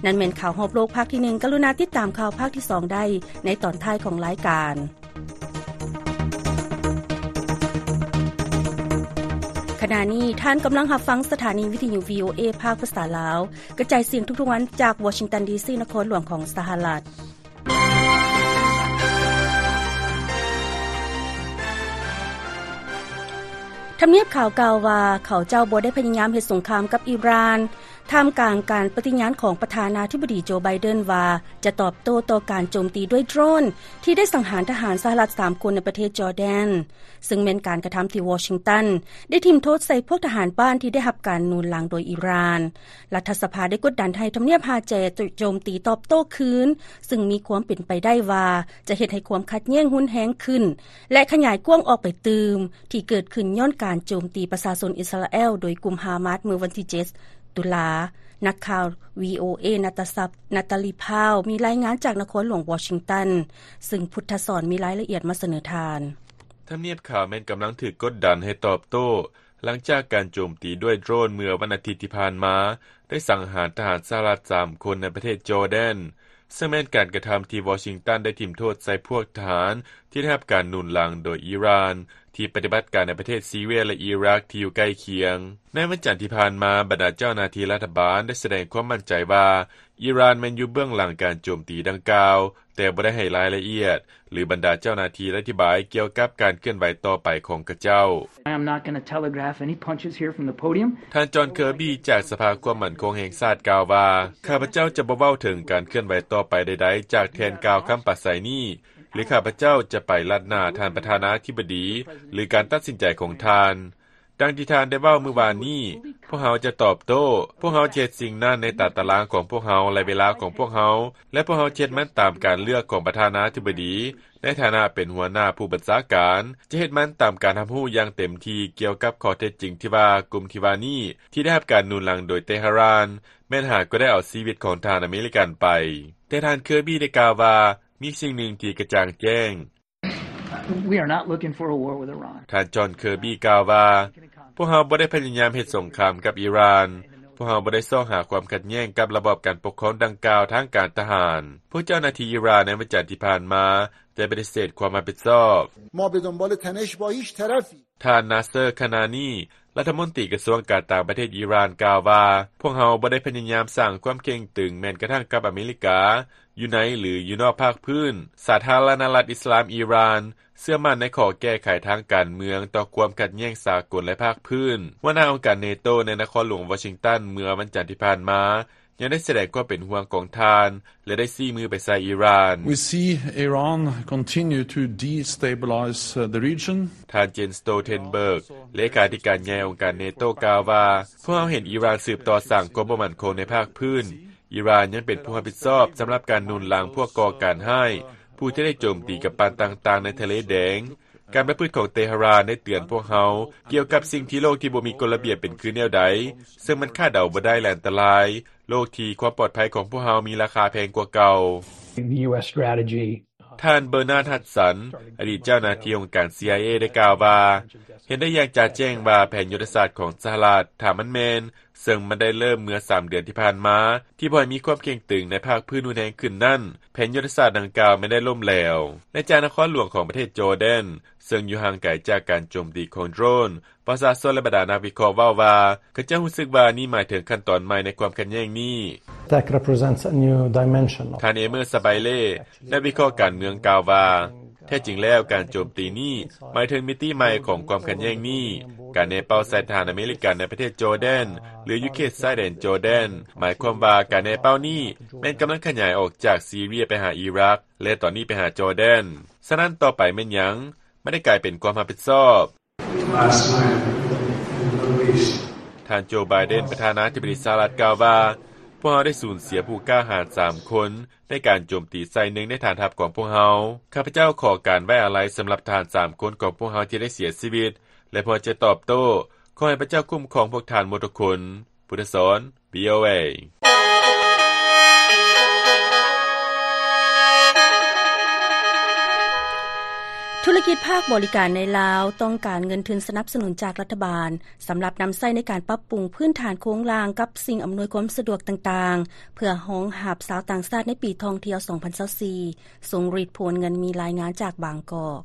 ນັ້ນແມ່ນຂ່າວຮອບໂລກພາກທີໜຶ່ງ. ກະລຸນາຕິດຕາມຂ່າວພາກທີສອງໄດ້ໃນຕອນທ້າຍຂອງລາຍການ. ຂະນະນີ້ທ່ານກຳລັງຮັບຟັງສະຖານີວິທະຍຸ ວີໂອເອ ພາກພາສາລາວ ກະຈາຍສຽງທຸກໆວັນຈາກວໍຊິງຕັນ ດີຊີ ນະຄອນຫຼວງຂອງສະຫະລັດ. ທຳນຽບຂາວກ່າວວ່າ ເຂົາເຈົ້າບໍ່ໄດ້ພະຍາຍາມເຮັດສົງຄາມກັບອີຣານ ທ່າມກາງການປະຕິຍານຂອງປະທານາທິບໍດີ ໂຈ ໄບເດັນ ວ່າຈະຕອບໂຕ້ຕໍ່ການໂຈມຕີດ້ວຍໂດຣນ ທີ່ໄດ້ສັງຫານທະຫານສະຫະລັດສາມຄົນໃນປະເທດຈໍແດນ, ເຊິ່ງແມ່ນການກະທຳທີ່ວໍຊິງຕັນໄດ້ຖິ້ມໂທດໃສ່ພວກທະຫານບ້ານທີ່ໄດ້ຮັບການໜູນຫຼັງໂດຍອີຣານ. ລັດຖະສະພາໄດ້ກົດດັນໃຫ້ທຳນຽບຮາແຈໂຈມຕີຕອບໂຕ້ຄືນ, ເຊິ່ງມີຄວາມເປັນໄປໄດ້ວ່າຈະເຮັດໃຫ້ຄວາມຂັດແຍ່ງຮຸນແຮງຂຶ້ນ ແລະ ຂະຫຍາຍກວ້າງອອກໄປຕື່ມ, ທີ່ເກີດຂຶ້ນຍ້ອນການໂຈມຕີປະຊາຊົນອິສຣາແອລໂດຍກຸ່ມຮາມາສເມື່ອວັນທີເຈັດ ຕຸລາ. ນັກຂ່າວ ວີໂອເອ ນາຕາຊັບ ນາຕາລີ ພາວ ມີລາຍງານຈາກນະຄອນຫຼວງວໍຊິງຕັນ, ເຊິ່ງພຸດທະສອນມີລາຍລະອຽດມາສະເໜີທ່ານ. ທຳນຽບຂາວແມ່ນກຳລັງຖືກກົດດັນໃຫ້ຕອບໂຕ້ ຫຼັງຈາກການໂຈມຕີດ້ວຍໂດຣນເມື່ອວັນອາທິດທີ່ຜ່ານມາ ໄດ້ສັງຫານທະຫານສະຫະລັດສາມຄົນໃນປະເທດຈໍແດນ, ເຊິ່ງແມ່ນການກະທຳທີ່ວໍຊິງຕັນໄດ້ຖິ້ມໂທດໃສ່ພວກທະຫານທີ່ໄດ້ຮັບການໜູນຫຼັງໂດຍອີຣານ ທີ່ປະຕິບັດການໃນປະເທດຊີເຣຍ ແລະ ອີຣັກທີ່ຢູ່ໃກ້ຄຽງ. ໃນວັນຈັນທີ່ຜ່ານມາ, ບັນດາເຈົ້າໜ້າທີ່ລັດຖະບານໄດ້ສະແດງຄວາມໝັ້ນໃຈວ່າ ອີຣານແມ່ນຢູ່ເບື້ອງຫຼັງການໂຈມຕີດັ່ງກ່າວ, ແຕ່ບໍ່ໄດ້ໃຫ້ລາຍລະອຽດ ຫຼື ບັນດາເຈົ້າໜ້າທີ່ອະທິບາຍກ່ຽວກັບການເຄື່ອນໄຫວຕໍ່ໄປຂອງຂະເຈົ້າ. I am not gonna telegraph any punches here from the podium. ທ່ານ ຈອນ ເຄີບີ ຈາກສະພາຄວາມໝັ້ນຄົງແຫ່ງຊາດກ່າວວ່າ, ຂ້າພະເຈົ້າຈະບໍ່ເວົ້າເຖິງການເຄື່ອນໄຫວຕໍ່ໄປໃດໆຈາກແທ່ນກ່າວຄຳປາໄສນີ້, ຫຼື ຂ້າພະເຈົ້າຈະໄປລັດໜ້າທ່ານປະທານາທິບໍດີ ຫຼື ການຕັດສິນໃຈຂອງທ່ານ. ດັ່ງທີ່ທ່ານໄດ້ເວົ້າມື້ວານນີ້, ພວກເຮົາຈະຕອບໂຕ້. ພວກເຮົາຈະເຮັດສິ່ງນັ້ນໃນຕາຕະລາງຂອງພວກເຮົາ ແລະ ເວລາຂອງພວກເຮົາ, ແລະ ພວກເຮົາຈະເຮັດມັນຕາມການເລືອກຂອງປະທານາທິບໍດີ ໃນຖານະເປັນຫົວໜ້າຜູ້ບັນຊາການ, ຈະເຮັດມັນຕາມການຮັບຮູ້ຢ່າງເຕັມທີ່ກ່ຽວກັບຂໍ້ເທັດຈິງທີ່ວ່າ ກຸ່ມທີ່ວ່ານີ້ທີ່ໄດ້ຮັບການໜູນຫຼັງໂດຍເຕຫະຣານ ແມ່ນຫາກໍໄດ້ເອົາຊີວິດຂອງທະຫານອາເມລິກັນໄປ. ແຕ່ທ່ານເຄີບີໄດ້ກ່າວວ່າ ມີສິ່ງໜຶ່ງທີ່ກະຈ່າງແຈ້ງ. We are not looking for a war with Iran. ທ່ານຈອນເຄີບີກ່າວວ່າ, ພວກເຮົາບໍ່ໄດ້ພະຍາຍາມເຮັດສົງຄາມກັບອີຣານ. ພວກເຮົາບໍ່ໄດ້ຊອກຫາຄວາມຂັດແຍ່ງກັບລະບອບການປົກຄອງດັ່ງກ່າວທາງການທະຫານ. ພວກເຈົ້າໜ້າທີ່ອີຣານໃນວັນຈັນທີ່ຜ່ານມາໄດ້ປະຕິເສດຄວາມຮັບຜິດຊອບ. ما به دنبال تنش با هیچ طرفی. ທ່ານນາເຊີ ຄານານີ ລັດຖະມົນຕີກະຊວງການຕ່າງປະເທດອີຣານກ່າວວ່າ, ພວກເຮົາບໍ່ໄດ້ພະຍາຍາມສ້າງຄວາມເຄັ່ງຕຶງແມ້ນກະທັ່ງກັບອາເມລິກາ ຢູ່ໃນ ຫຼື ຢູ່ນອກພາກພື້ນ. ສາທາລະນະລັດອິດສະລາມອີຣານເຊື່ອໝັ້ນໃນຂໍ້ແກ້ໄຂທາງການເມືອງຕໍ່ຄວາມຂັດແຍ່ງສາກົນ ແລະ ພາກພື້ນ. ຫົວໜ້າອົງການເນໂຕໃນນະຄອນຫຼວງວໍຊິງຕັນເມື່ອວັນຈັນທີ່ຜ່ານມາ ຍັງໄດ້ສະແດງຄວາມເປັນຫ່ວງຂອງທ່ານ ແລະ ໄດ້ຊີ້ມືໄປໃສ່ອີຣານ. We see Iran continue to destabilize, uh, the region. ທ່ານ Jens Stoltenberg ເລຂາທິການໃຫຍ່ອົງການເນໂຕກ່າວວ່າ, ພວກເຮົາເຫັນອີຣານສືບຕໍ່ສ້າງຄວາມບໍ່ໝັ້ນຄົງໃນພາກພື້ນ. ອີຣານຍັງເປັນຜູ້ຮັບຜິດຊອບສຳລັບການໜູນຫຼັງພວກກໍ່ການຮ້າຍ ຜູ້ທີ່ໄດ້ໂຈມຕີກຳປັ່ນຕ່າງໆໃນທະເລແດງ. ການປະພຶດຂອງເຕຫະຣານໄດ້ເຕືອນພວກເຮົາກ່ຽວກັບສິ່ງທີ່ໂລກທີ່ບໍ່ມີກົດລະບຽບເປັນຄືແນວໃດ, ເຊິ່ງມັນຄາດເດົາບໍ່ໄດ້ ແລະ ອັນຕະລາຍ. ໂລກທີ່ຄວາມປອດໄພຂອງພວກເຮົາມີລາຄາແພງກວ່າເກົ່າ. The U S strategy. ທ່ານ Bernard Hudson ອະດີດເຈົ້າໜ້າທີ່ອົງການ CIA ໄດ້ກ່າວວ່າ, ເຫັນໄດ້ຢ່າງຈະແຈ້ງວ່າແຜນຍຸດທະສາດຂອງສະຫະລັດ, ຖ້າມັນແມ່ນ, ເຊິ່ງມັນໄດ້ເລີ່ມເມື່ອສາມເດືອນທີ່ຜ່ານມາ, ທີ່ບໍ່ໃຫ້ມີຄວາມເຄັ່ງຕຶງໃນພາກພື້ນຮຸນແຮງຂຶ້ນນັ້ນ, ແຜນຍຸດທະສາດດັ່ງກ່າວແມ່ນໄດ້ລົ້ມແຫຼວ. ແລະ ຈາກນະຄອນຫຼວງຂອງປະເທດຈໍແດນ, ເຊິ່ງຢູ່ຫ່າງໄກຈາກການໂຈມຕີຂອງໂດຣນ, ປະຊາຊົນ ແລະ ບັນດານັກວິເຄາະເວົ້າວ່າ ເຂົາເຈົ້າຮູ້ສຶກວ່ານີ້ໝາຍເຖິງຂັ້ນຕອນໃໝ່ໃນຄວາມຂັດແຍ່ງນີ້. That represents a new dimension of. ທ່ານ Emer Sabile ນັກວິເຄາະການເມືອງກ່າວວ່າ, ແທ້ຈິງແລ້ວການໂຈມຕີນີ້ໝາຍເຖິງມິຕິໃໝ່ຂອງຄວາມຂັດແຍ່ງນີ້. ການແນເປົ້າໃສ່ທະຫານອາເມລິກັນໃນປະເທດຈໍແດນ ຫຼື ຢູ່ເຂດຊາຍແດນຈໍແດນ ໝາຍຄວາມວ່າການແນເປົ້ານີ້ແມ່ນກຳລັງຂະຫຍາຍອອກຈາກຊີເຣຍໄປຫາອີຣັກ ແລະ ຕອນນີ້ໄປຫາຈໍແດນ. ສະນັ້ນຕໍ່ໄປແມ່ນຫຍັງ? ມັນໄດ້ກາຍເປັນຄວາມຮັບຜິດຊອບ. ທ່ານໂຈ ໄບເດັນ ປະທານາທິບໍດີສະຫະລັດກ່າວວ່າ, ພວກເຮົາໄດ້ສູນເສຍຜູ້ກ້າຫານສາມຄົນໃນການໂຈມຕີໃສ່ໜຶ່ງໃນຖານທັບຂອງພວກເຮົາ. ຂ້າພະເຈົ້າຂໍການໄວ້ອາໄລສຳລັບທະຫານສາມຄົນຂອງພວກເຮົາທີ່ໄດ້ເສຍຊີວິດ ແລະ ພວກເຮົາຈະຕອບໂຕ້. ຂໍໃຫ້ພະເຈົ້າຄຸ້ມຄອງພວກທ່ານໝົດທຸກຄົນ. ພຸດທະສອນ ວີໂອເອ. ທຸລະກິດພາກບໍລິການໃນລາວຕ້ອງການເງິນທຶນສະໜັບສະໜູນຈາກລັດຖະບານ ສຳລັບນຳໃຊ້ໃນການປັບປຸງພື້ນຖານໂຄງລ່າງກັບສິ່ງອຳນວຍຄວາມສະດວກຕ່າງໆ ເພື່ອຮອງຮັບຊາວຕ່າງຊາດໃນປີທ່ອງທ່ຽວສອງພັນຊາວສີ່. ຊົງລິດ ພວນເງິນ ມີລາຍງານຈາກບາງກອກ.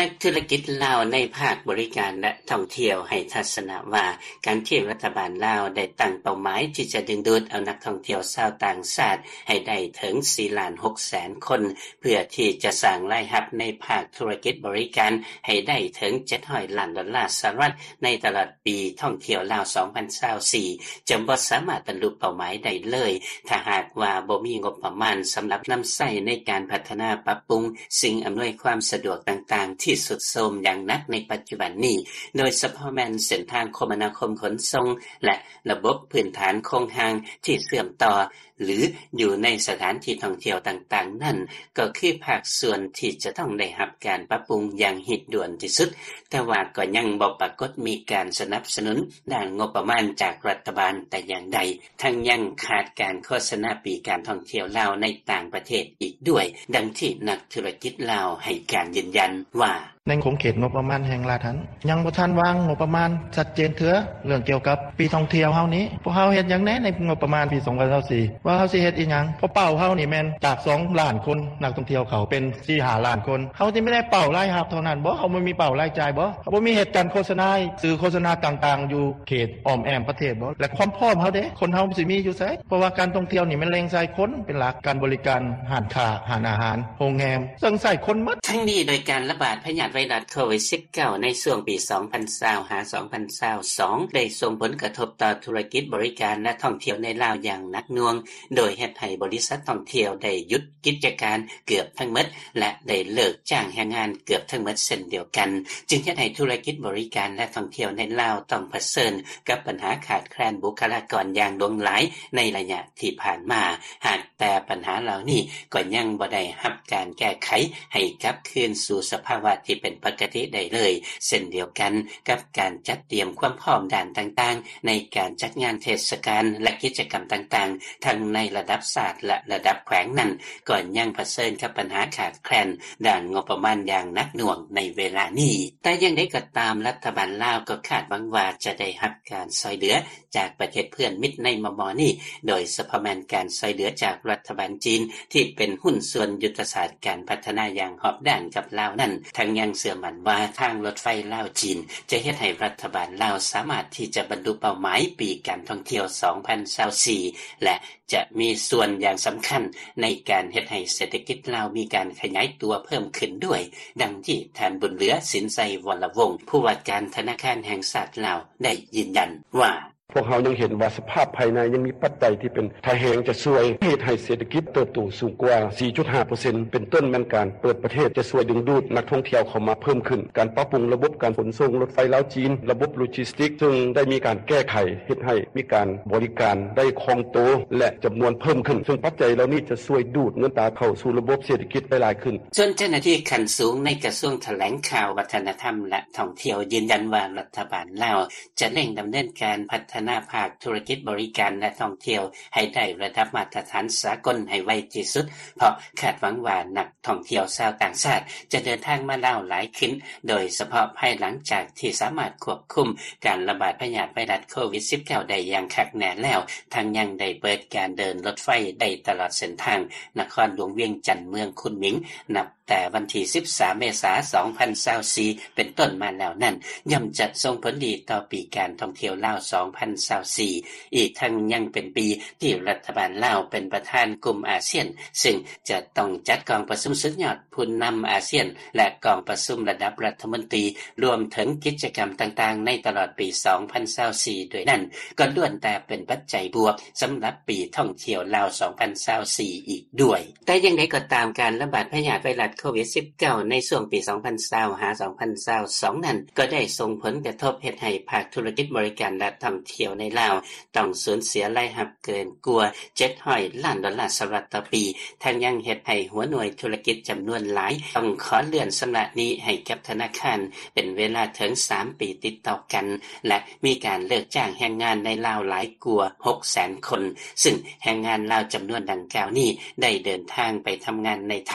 ນັກທຸລະກິດລາວໃນພາກບໍລິການ ແລະ ທ່ອງທ່ຽວໃຫ້ທັດສະນະວ່າ, ການທີ່ລັດຖະບານລາວໄດ້ຕັ້ງເປົ້າໝາຍທີ່ຈະດຶງດູດເອົານັກທ່ອງທ່ຽວຊາວຕ່າງຊາດໃຫ້ໄດ້ເຖິງສີ່ລ້ານຫົກແສນຄົນ ເພື່ອທີ່ຈະສ້າງລາຍຮັບໃນພາກທຸລະກິດບໍລິການໃຫ້ໄດ້ເຖິງເຈັດຮ້ອຍລ້ານໂດລາສະຫະລັດໃນຕະຫຼອດ ປີທ່ອງທ່ຽວລາວສອງພັນຊາວສີ່ ຈະບໍ່ສາມາດບັນລຸເປົ້າໝາຍໄດ້ເລີຍ ຖ້າຫາກວ່າບໍ່ມີງົບປະມານສຳລັບນຳໃຊ້ໃນການພັດທະນາປັບປຸງສິ່ງອຳນວຍຄວາມສະດວກຕ່າງໆທີ່ຊຸດໂຊມຢ່າງໜັກໃນປັດຈຸບັນນີ້, ໂດຍສະເພາະແມ່ນເສັ້ນທາງຄົມມະນາຄົມຂົນສົ່ງ ແລະ ລະບົບພື້ນຖານໂຄງຮ່າງທີ່ເຊື່ອມຕໍ່ ຫຼື ຢູ່ໃນສະຖານທີ່ທ່ອງທ່ຽວຕ່າງໆນັ້ນ ກໍຄືພາກສ່ວນທີ່ຈະຕ້ອງໄດ້ຮັບການປັບປຸງຢ່າງຮີບດ່ວນທີ່ສຸດ, ແຕ່ວ່າກໍຍັງບໍ່ປາກົດມີການສະໜັບສະໜູນດ້ານງົບປະມານຈາກລັດຖະບານແຕ່ຢ່າງໃດ, ທັງຍັງຂາດການໂຄສະນາປີການທ່ອງທ່ຽວລາວໃນຕ່າງປະເທດອີກດ້ວຍ, ດັ່ງທີ່ນັກທຸລະກິດລາວໃຫ້ການຢືນຢັນວ່າ. ໃນຂົງເຂດງົບປະມານແຫ່ງລັດຫັ້ນ ຍັງບໍ່ທັນວາງງົບປະມານຊັດເຈນເທື່ອ. ເລື່ອງກ່ຽວກັບປີທ່ອງທ່ຽວເຮົານີ້ ພວກເຮົາເຮັດຫຍັງແດ່ໃນງົບປະມານປີສອງພັນຊາວສີ່ ວ່າເຮົາຊິເຮັດອີ່ຫຍັງ? ເພາະເປົ້າເຮົານີ້ແມ່ນຈາກສອງລ້ານຄົນ ນັກທ່ອງທ່ຽວເຂົ້າເປັນສີ່ຫ້າລ້ານຄົນ. ເຮົາຊິມີແຕ່ເປົ້າລາຍຮັບເທົ່ານັ້ນບໍ? ເຮົາບໍ່ມີເປົ້າລາຍຈ່າຍບໍ? ເຮົາບໍ່ມີເຫດການໂຄສະນາ ສື່ໂຄສະນາຕ່າງໆ ຢູ່ເຂດອ້ອມແອ້ມປະເທດບໍ? ແລະ ຄວາມພ້ອມເຮົາເດ? ຄົນເຮົາຊິມີຢູ່ໃສ? ເພາະວ່າການທ່ອງທ່ຽວນີ້ແມ່ນແຫຼ່ງໃຊ້ຄົນເປັນຫຼັກ, ການບໍລິການ, ຮ້ານຄ້າ, ຮ້ານອາຫານ, ໂຮງແຮມ, ເຊິ່ງໃຊ້ຄົນໝົດ. ທັງນີ້ ໂດຍການລະບາດພະຍາດ ໄວຣັສໂຄວິດ-19 ໃນຊ່ວງປີ ສອງພັນຊາວ ຫາ ສອງພັນຊາວສອງ ໄດ້ສົ່ງຜົນກະທົບຕໍ່ທຸລະກິດບໍລິການ ແລະ ທ່ອງທ່ຽວໃນລາວຢ່າງໜັກໜ່ວງ, ໂດຍເຮັດໃຫ້ບໍລິສັດທ່ອງທ່ຽວໄດ້ຢຸດກິດຈະການເກືອບທັງໝົດ ແລະ ໄດ້ເລີກຈ້າງແຮງງານເກືອບທັງໝົດເຊັ່ນດຽວກັນ, ຈຶ່ງເຮັດໃຫ້ທຸລະກິດບໍລິການ ແລະ ທ່ອງທ່ຽວໃນລາວຕ້ອງປະເຊີນກັບບັນຫາຂາດແຄລນບຸກຄະລາກອນຢ່າງຫຼວງຫຼາຍໃນໄລຍະທີ່ຜ່ານມາ. ຫາກ ແຕ່ບັນຫາເຫຼົ່ານີ້ກໍຍັງບໍ່ໄດ້ຮັບການແກ້ໄຂໃຫ້ກັບຄືນສູ່ສະພາວະທີ່ເປັນປົກກະຕິໄດ້ເລີຍ, ເຊັ່ນດຽວກັນກັບການຈັດຕຽມຄວາມພ້ອມດ້ານຕ່າງໆ ໃນການຈັດງານເທດສະການ ແລະ ກິດຈະກຳຕ່າງໆ ທັງໃນລະດັບຊາດ ແລະ ລະດັບແຂວງນັ້ນ ກໍຍັງປະເຊີນກັບບັນຫາຂາດແຄລນດ້ານງົບປະມານຢ່າງໜັກໜ່ວງໃນເວລານີ້. ແຕ່ຢ່າງໃດກໍຕາມ, ລັດຖະບານລາວກໍຄາດຫວັງວ່າຈະໄດ້ຮັບການຊ່ອຍເຫຼືອ ຈາກປະເທດເພື່ອນມິດໃນມໍ່ໆນີ້, ໂດຍສະເພາະແມ່ນການຊ່ອຍເຫຼືອຈາກລັດຖະບານຈີນ ທີ່ເປັນຫຸ້ນສ່ວນຍຸດທະສາດການພັດທະນາຢ່າງຮອບດ້ານກັບລາວນັ້ນ, ທັງຍັງເຊື່ອໝັ້ນວ່າທາງລົດໄຟລາວ-ຈີນ ຈະເຮັດໃຫ້ລັດຖະບານລາວສາມາດທີ່ຈະບັນລຸເປົ້າໝາຍປີການທ່ອງທ່ຽວ ສອງພັນຊາວສີ່ ແລະ ຈະມີສ່ວນຢ່າງສຳຄັນໃນການເຮັດໃຫ້ເສດຖະກິດລາວມີການຂະຫຍາຍຕົວເພີ່ມຂຶ້ນດ້ວຍ, ດັ່ງທີ່ທ່ານ ບຸນເຫຼືອ ສິນໄຊວໍລະວົງ ຜູ້ວ່າການທະນາຄານແຫ່ງຊາດລາວ ໄດ້ຢືນຢັນວ່າ: ພວກເຮົາຍັງເຫັນວ່າສະພາບພາຍໃນຍັງມີປັດໄຈທີ່ເປັນທ່າແຮງຈະຊ່ວຍເຮັດໃຫ້ເສດຖະກິດເຕີບໂຕສູງກວ່າ ສີ່ຈຸດຫ້າເປີເຊັນ ເປັນຕົ້ນແມ່ນການເປີດປະເທດຈະຊ່ວຍດຶງດູດນັກທ່ອງທ່ຽວເຂົ້າມາເພີ່ມຂຶ້ນ, ການປັບປຸງລະບົບການຂົນສົ່ງລົດໄຟລາວ-ຈີນ, ລະບົບໂລຈິສຕິກ ເຊິ່ງໄດ້ມີການແກ້ໄຂເຮັດໃຫ້ມີການບໍລິການໄດ້ຄ່ອງໂຕ ແລະ ຈຳນວນເພີ່ມຂຶ້ນ, ເຊິ່ງປັດໄຈເຫຼົ່ານີ້ຈະຊ່ວຍດູດເງິນຕາເຂົ້າສູ່ລະບົບເສດຖະກິດໄດ້ຫຼາຍຂຶ້ນ. ສ່ວນເຈົ້າໜ້າທີ່ຂັ້ນສູງໃນກະຊວງຖະແຫຼງຂ່າວ, ວັດທະນະທຳ ແລະ ທ່ອງທ່ຽວ ຢືນຢັນວ່າລັດຖະບານລາວ ຈະເລັ່ງດຳເນີນການພັດທະນາພາກທຸລະກິດບໍລິການ ແລະ ທ່ອງທ່ຽວໃຫ້ໄດ້ລະດັບມາດຕະຖານສາກົນໃຫ້ໄວທີ່ສຸດ, ເພາະຄາດຫວັງວ່ານັກທ່ອງທ່ຽວຊາວຕ່າງຊາດຈະເດີນທາງມາລາວຫຼາຍຂຶ້ນ, ໂດຍສະເພາະພາຍຫຼັງຈາກທີ່ສາມາດຄວບຄຸມການລະບາດພະຍາດໄວຣັສໂຄວິດ-19 ໄດ້ຢ່າງຄັກແນ່ແລ້ວ, ທັງຍັງໄດ້ເປີດການເດີນລົດໄຟໄດ້ຕະຫຼອດເສັ້ນທາງນະຄອນຫຼວງວຽງຈັນ ເມືອງຄຸນໝິງ ນັບ ແຕ່ວັນທີ ສິບສາມ ເມສາ ສອງພັນຊາວສີ່ ເປັນຕົ້ນມາແລ້ວນັ້ນ ຍ່ອມຈະສົ່ງຜົນດີຕໍ່ປີການທ່ອງທ່ຽວລາວ ສອງພັນຊາວສີ່ ອີກທັງຍັງເປັນປີທີ່ລັດຖະບານລາວເປັນປະທານກຸ່ມອາຊຽນ ເຊິ່ງຈະຕ້ອງຈັດກອງປະຊຸມສຸດຍອດຜູ້ນຳອາຊຽນ ແລະ ກອງປະຊຸມລະດັບລັດຖະມົນຕີ ລວມເຖິງກິດຈະກຳຕ່າງໆໃນຕະຫຼອດປີ ສອງພັນຊາວສີ່ ດ້ວຍນັ້ນ ກໍລ້ວນແຕ່ເປັນປັດໄຈບວກສຳລັບປີທ່ອງທ່ຽວລາວ ສອງພັນຊາວສີ່ ອີກດ້ວຍ. ແຕ່ຢ່າງໃດກໍຕາມ, ການລະບາດພະຍາດໄວຣັສໂຄວິດ-19 ໃນຊ່ວງປີ ສອງພັນຊາວ ຫາ ສອງພັນຊາວສອງ ນັ້ນ ກໍໄດ້ສົ່ງຜົນກະທົບເຮັດໃຫ້ພາກທຸລະກິດບໍລິການ ແລະ ທ່ອງທ່ຽວໃນລາວ ຕ້ອງສູນເສຍລາຍຮັບເກີນກວ່າ ເຈັດຮ້ອຍລ້ານໂດລາສະຫະລັດຕໍ່ປີ, ທັງຍັງເຮັດໃຫ້ຫົວໜ່ວຍທຸລະກິດຈຳນວນຫຼາຍ ຕ້ອງຂໍເລື່ອນຊຳລະໜີ້ໃຫ້ກັບທະນາຄານເປັນເວລາເຖິງສາມປີຕິດຕໍ່ກັນ ແລະ ມີການເລີກຈ້າງແຮງງານໃນລາວຫຼາຍກວ່າ ຫົກແສນຄົນ, ຊຶ່ງແຮງງານລາວຈຳນວນດັ່ງກ່າວນີ້ ໄດ້ເດີນທາງໄປທຳງານໃນໄທ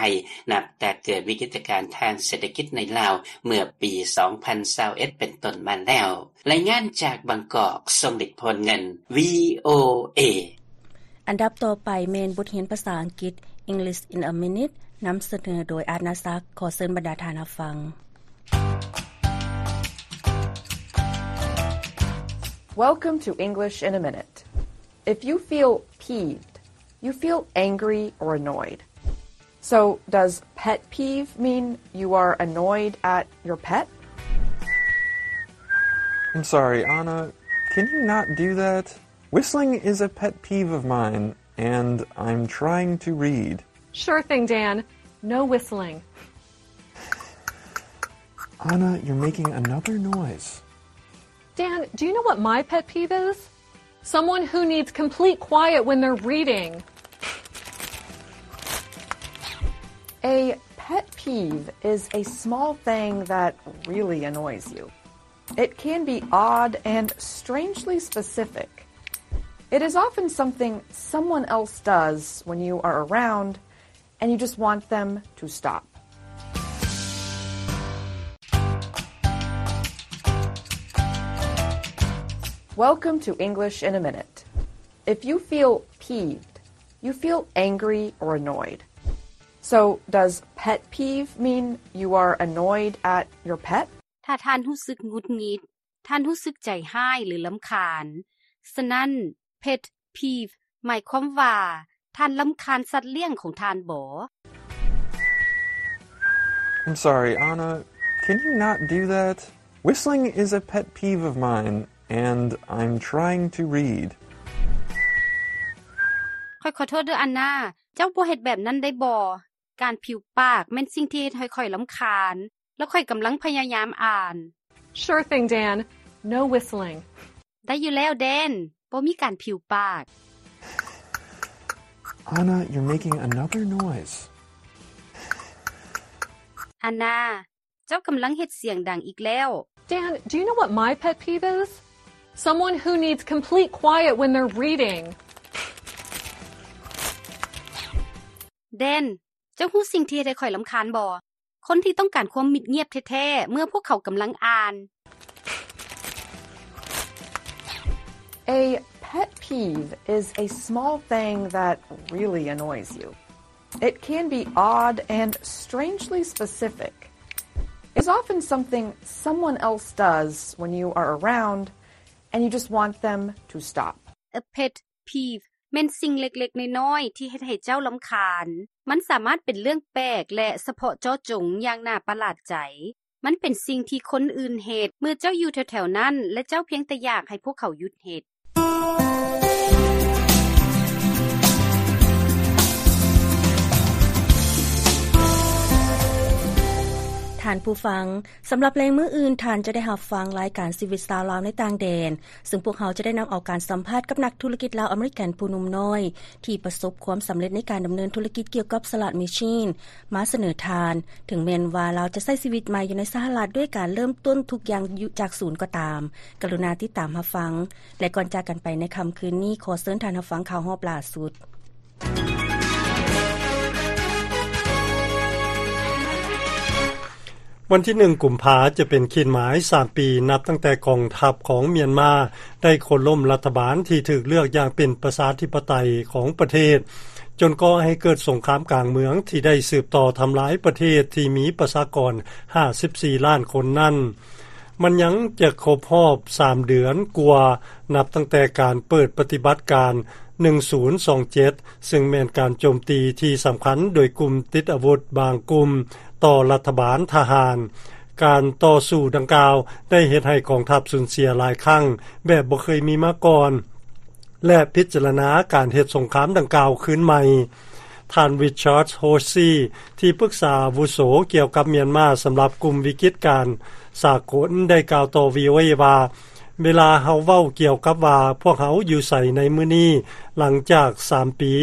ນັບແຕ່ເກີດວິກິດຕະການທາງເສດຖະກິດໃນລາວເມື່ອປີ ສອງພັນຊາວເອັດ ເປັນຕົ້ນມາແລ້ວ. ລາຍງານຈາກບາງກອກ, ຊົງລິດ ໂພນເງິນ ວີໂອເອ. ອັນດັບຕໍ່ໄປແມ່ນບົດຮຽນພາສາອັງກິດ English in a Minute ນຳສະເໜີໂດຍ ອາດນາສັກ. ຂໍເຊີນບັນດາທ່ານຮັບຟັງ. Welcome to English in a Minute. If you feel peeved, you feel angry or annoyed. So, does pet peeve mean you are annoyed at your pet? I'm sorry, Anna. Can you not do that? Whistling is a pet peeve of mine, and I'm trying to read. Sure thing, Dan. No whistling. Anna, you're making another noise. Dan, do you know what my pet peeve is? Someone who needs complete quiet when they're reading. A pet peeve is a small thing that really annoys you. It can be odd and strangely specific. It is often something someone else does when you are around and you just want them to stop. Welcome to English in a Minute. If you feel peeved, you feel angry or annoyed. So, does pet peeve mean you are annoyed at your pet? ຖ້າທ່ານຮູ້ສຶກຫງຸດຫງິດ, ທ່ານຮູ້ສຶກໃຈຮ້າຍ ຫຼື ລຳຄານ. ສະນັ້ນ, pet peeve ໝາຍຄວາມວ່າ ທ່ານລຳຄານສັດລ້ຽງຂອງທ່ານບໍ? I'm sorry, Anna. Can you not do that? Whistling is a pet peeve of mine, and I'm trying to read. ຂ້ອຍຂໍໂທດເດີ້ ອັນນາ, ເຈົ້າບໍ່ເຮັດແບບນັ້ນໄດ້ບໍ່? ການຜິວປາກແມ່ນສິ່ງທີ່ເຮັດໃຫ້ຂ້ອຍລຳຄານ, ແລ້ວຂ້ອຍກຳລັງພະຍາຍາມອ່ານ. Sure thing, Dan. No whistling. ໄດ້ຢູ່ແລ້ວ ແດນ. ບໍ່ມີການຜິວປາກ. Anna, you're making another noise. ອັນນາ, ເຈົ້າກຳລັງເຮັດສຽງດັງອີກແລ້ວ. Dan, do you know what my pet peeve is? Someone who needs complete quiet when they're reading. ແດນ, ເຈົ້າຮູ້ສິ່ງທີ່ເຮັດໃຫ້ຂ້ອຍລຳຄານບໍ່? ຄົນທີ່ຕ້ອງການຄວາມມິດງຽບແທ້ໆ ເມື່ອພວກເຂົາກຳລັງອ່ານ. A pet peeve is a small thing that really annoys you. It can be odd and strangely specific. It's often something someone else does when you are around and you just want them to stop. A pet peeve ແມ່ນສິ່ງເລັກໆນ້ອຍໆທີ່ເຮັດໃຫ້ເຈົ້າລຳຄານ. ມັນສາມາດເປັນເລື່ອງແປກ ແລະ ສະເພາະເຈາະຈົງຢ່າງໜ້າປະຫຼາດໃຈ. ມັນເປັນສິ່ງທີ່ຄົນອື່ນເຮັດເມື່ອເຈົ້າຢູ່ແຖວໆນັ້ນ ແລະ ເຈົ້າພຽງແຕ່ຢາກໃຫ້ພວກເຂົາຢຸດເຮັດ. ທ່ານຜູ້ຟັງ, ສຳລັບແລງມື້ອື່ນ, ທ່ານຈະໄດ້ຮັບຟັງລາຍການຊີວິດຊາວລາວໃນຕ່າງແດນ, ຊຶ່ງພວກເຮົາຈະໄດ້ນຳເອົາການສຳພາດກັບນັກທຸລະກິດລາວອາເມລິກັນຜູ້ໜຸ່ມນ້ອຍ ທີ່ປະສົບຄວາມສຳເລັດໃນການດຳເນີນທຸລະກິດກ່ຽວກັບສະຫຼາດແມຊີນ ມາສະເໜີທ່ານ, ເຖິງແມ່ນວ່າລາວຈະໃຊ້ຊີວິດໃໝ່ຢູ່ໃນສະຫະລັດດ້ວຍການເລີ່ມຕົ້ນທຸກຢ່າງຢູ່ຈາກສູນກໍຕາມ. ກະລຸນາຕິດຕາມຮັບຟັງ. ແລະ ກ່ອນຈາກກັນໄປໃນຄ່ຳຄືນນີ້, ຂໍເຊີນທ່ານຮັບຟັງຂ່າວຮອບລ່າສຸດ. ວັນທີໜຶ່ງ ກຸມພາ ຈະເປັນຂີດໝາຍສາມປີ ນັບຕັ້ງແຕ່ກອງທັບຂອງມຽນມາໄດ້ໂຄ່ນລົ້ມລັດຖະບານທີ່ຖືກເລືອກຢ່າງເປັນປະຊາທິປະໄຕຂອງປະເທດ, ຈົນກໍ່ໃຫ້ເກີດສົງຄາມກາງເມືອງທີ່ໄດ້ສືບຕໍ່ທຳລາຍປະເທດທີ່ມີປະຊາກອນຫ້າສິບສີ່ລ້ານຄົນນັ້ນ. ມັນຍັງຈະຄົບຮອບສາມເດືອນກວ່າ ນັບຕັ້ງແຕ່ການເປີດປະຕິບັດການໜຶ່ງສູນສອງເຈັດ ຊຶ່ງແມ່ນການໂຈມຕີທີ່ສຳຄັນໂດຍກຸ່ມຕິດອາວຸດບາງກຸ່ມຕໍ່ລັດຖະບານທະຫານ. ການຕໍ່ສູ້ດັ່ງກ່າວໄດ້ເຮັດໃຫ້ກອງທັບສູນເສຍຫຼາຍຄັ້ງແບບບໍ່ເຄີຍມີມາກ່ອນ ແລະ ພິຈາລະນາການເຮັດສົງຄາມດັ່ງກ່າວຄືນໃໝ່. ທ່ານ Richard Horsey ທີ່ປຶກສາອາວຸໂສກ່ຽວກັບມຽນມາສຳລັບກຸ່ມວິກິດການສາກົນ ໄດ້ກ່າວຕໍ່ ວີໂອເອ ວ່າ, ເວລາເຮົາເວົ້າກ່ຽວກັບວ່າພວກເຮົາຢູ່ໃສໃນມື້ນີ້ຫຼັງຈາກສາມປີ,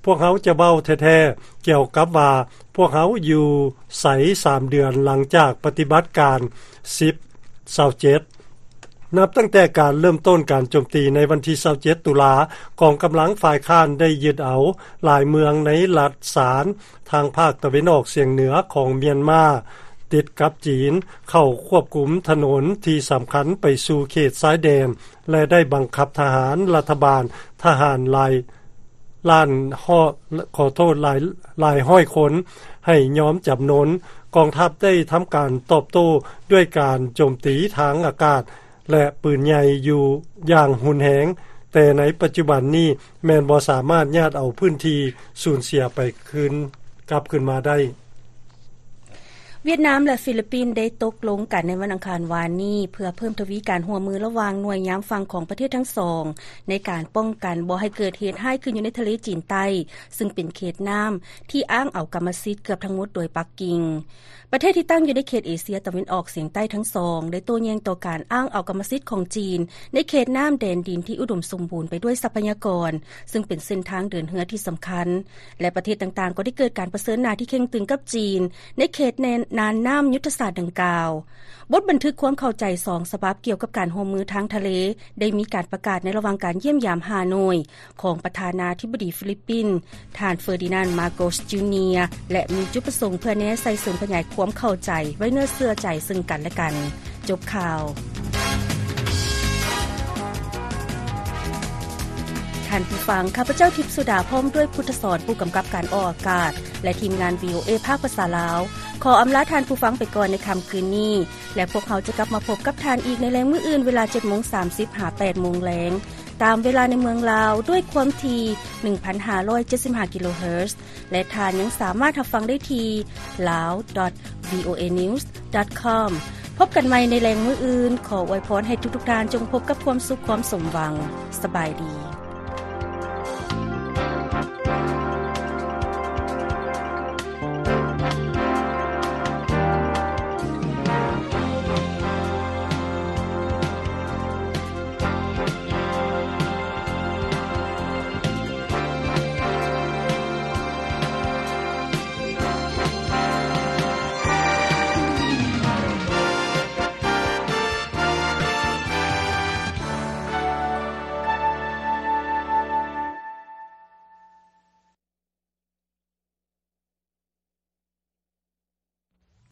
ພວກເຮົາຈະເວົ້າແທ້ໆກ່ຽວກັບວ່າພວກເຮົາຢູ່ໃສສາມເດືອນຫຼັງຈາກປະຕິບັດການສິບ ຊາວເຈັດ. ນັບຕັ້ງແຕ່ການເລີ່ມຕົ້ນການໂຈມຕີໃນວັນທີຊາວເຈັດ ຕຸລາ, ກອງກຳລັງຝ່າຍຄ້ານໄດ້ຍຶດເອົາຫຼາຍເມືອງໃນລັດຊານ ທາງພາກຕາເວັນອອກສຽງເໜືອຂອງມຽນມາ ຕິດກັບຈີນ, ເຂົ້າຄວບຄຸມຖະໜົນທີ່ສຳຄັນໄປສູ່ເຂດຊາຍແດນ ແລະ ໄດ້ບັງຄັບທະຫານລັດຖະບານ, ທະຫານຫຼາຍລ້ານ ຂໍໂທດ, ຫຼາຍ, ຫຼາຍຮ້ອຍຄົນໃຫ້ຍອມຈຳນົນ. ກອງທັບໄດ້ທຳການຕອບໂຕ້ດ້ວຍການໂຈມຕີທາງອາກາດ ແລະ ປືນໃຫຍ່ຢູ່ຢ່າງຮຸນແຮງ, ແຕ່ໃນປັດຈຸບັນນີ້ແມ່ນບໍ່ສາມາດຍາດເອົາພື້ນທີ່ສູນເສຍໄປຄືນ, ກັບຄືນມາໄດ້. ຫວຽດນາມ ແລະ ຟີລິບປິນໄດ້ຕົກລົງກັນໃນວັນອັງຄານວານນີ້ ເພື່ອເພີ່ມທະວີການຮ່ວມມືລະຫວ່າງໜ່ວຍຍາມຝັ່ງຂອງປະເທດທັງສອງ ໃນການປ້ອງກັນບໍ່ໃຫ້ເກີດເຫດຮ້າຍຂຶ້ນຢູ່ໃນທະເລຈີນໃຕ້, ຊຶ່ງເປັນເຂດນ້ຳທີ່ອ້າງເອົາກຳມະສິດເກືອບທັງໝົດໂດຍປັກກິ່ງ. ປະເທດທີ່ຕັ້ງຢູ່ໃນເຂດເອເຊຍຕາເວັນອອກສຽງໃຕ້ທັງສອງ ໄດ້ໂຕ້ແຍ້ງຕໍ່ການອ້າງເອົາກຳມະສິດຂອງຈີນ ໃນເຂດນ້ຳແດນດິນທີ່ອຸດົມສົມບູນໄປດ້ວຍຊັບພະຍາກອນ, ຊຶ່ງເປັນເສັ້ນທາງເດີນເຮືອທີ່ສຳຄັນ ແລະ ປະເທດຕ່າງໆກໍໄດ້ເກີດການປະເຊີນໜ້າທີ່ເຄັ່ງຕຶງກັບຈີນ ໃນເຂດແດນນ່ານນ້ຳຍຸດທະສາດດັ່ງກ່າວ. ບົດບັນທຶກຄວາມເຂົ້າໃຈສອງສະບັບກ່ຽວກັບການຮ່ວມມືທາງທະເລ ໄດ້ມີການປະກາດໃນລະຫວ່າງການຢ້ຽມຢາມຮ່າໂນ້ຍ ຂອງປະທານາທິບໍດີຟີລິບປິນ ທ່ານ ເຟີດີນານ ມາໂກສ ຈູເນຍ ແລະ ມີຈຸດປະສົງເພື່ອແນໃສ່ເສີມຂະຫຍາຍຄວາມເຂົ້າໃຈໄວ້ເນື້ອເຊື່ອໃຈເຊິ່ງກັນແລະກັນ. ຈົບຂ່າວ. ທ່ານຜູ້ຟັງ, ຂ້າພະເຈົ້າ ທິບສຸດາ ພ້ອມດ້ວຍ ພຸດທະສອນ ຜູ້ກຳກັບການອອກອາກາດ ແລະ ທີມງານ ວີໂອເອ ພາກພາສາລາວ ຂໍອຳລາທ່ານຜູ້ຟັງໄປກ່ອນໃນຄ່ຳຄືນນີ້ ແລະ ພວກເຮົາຈະກັບມາພົບກັບທ່ານອີກໃນແລງມື້ອື່ນ ເວລາເຈັດໂມງສາມສິບ ຫາ ແປດໂມງແລງ ຕາມເວລາໃນເມືອງລາວ ດ້ວຍຄວາມຖີ່ ໜຶ່ງພັນຫ້າຮ້ອຍເຈັດສິບຫ້າ ກິໂລເຮີດ ແລະ ທ່ານຍັງສາມາດຮັບຟັງໄດ້ທີ່ lawdotvoa.com. วีโอเอนิวส์ดอทคอม พบกันใหม่ในแลงมื้ออื่น ขออวยพรให้ทุกๆท่านจงพบกับความสุขความสมหวัง สบายดี.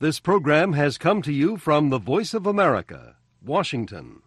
This program has come to you from the Voice of America, Washington.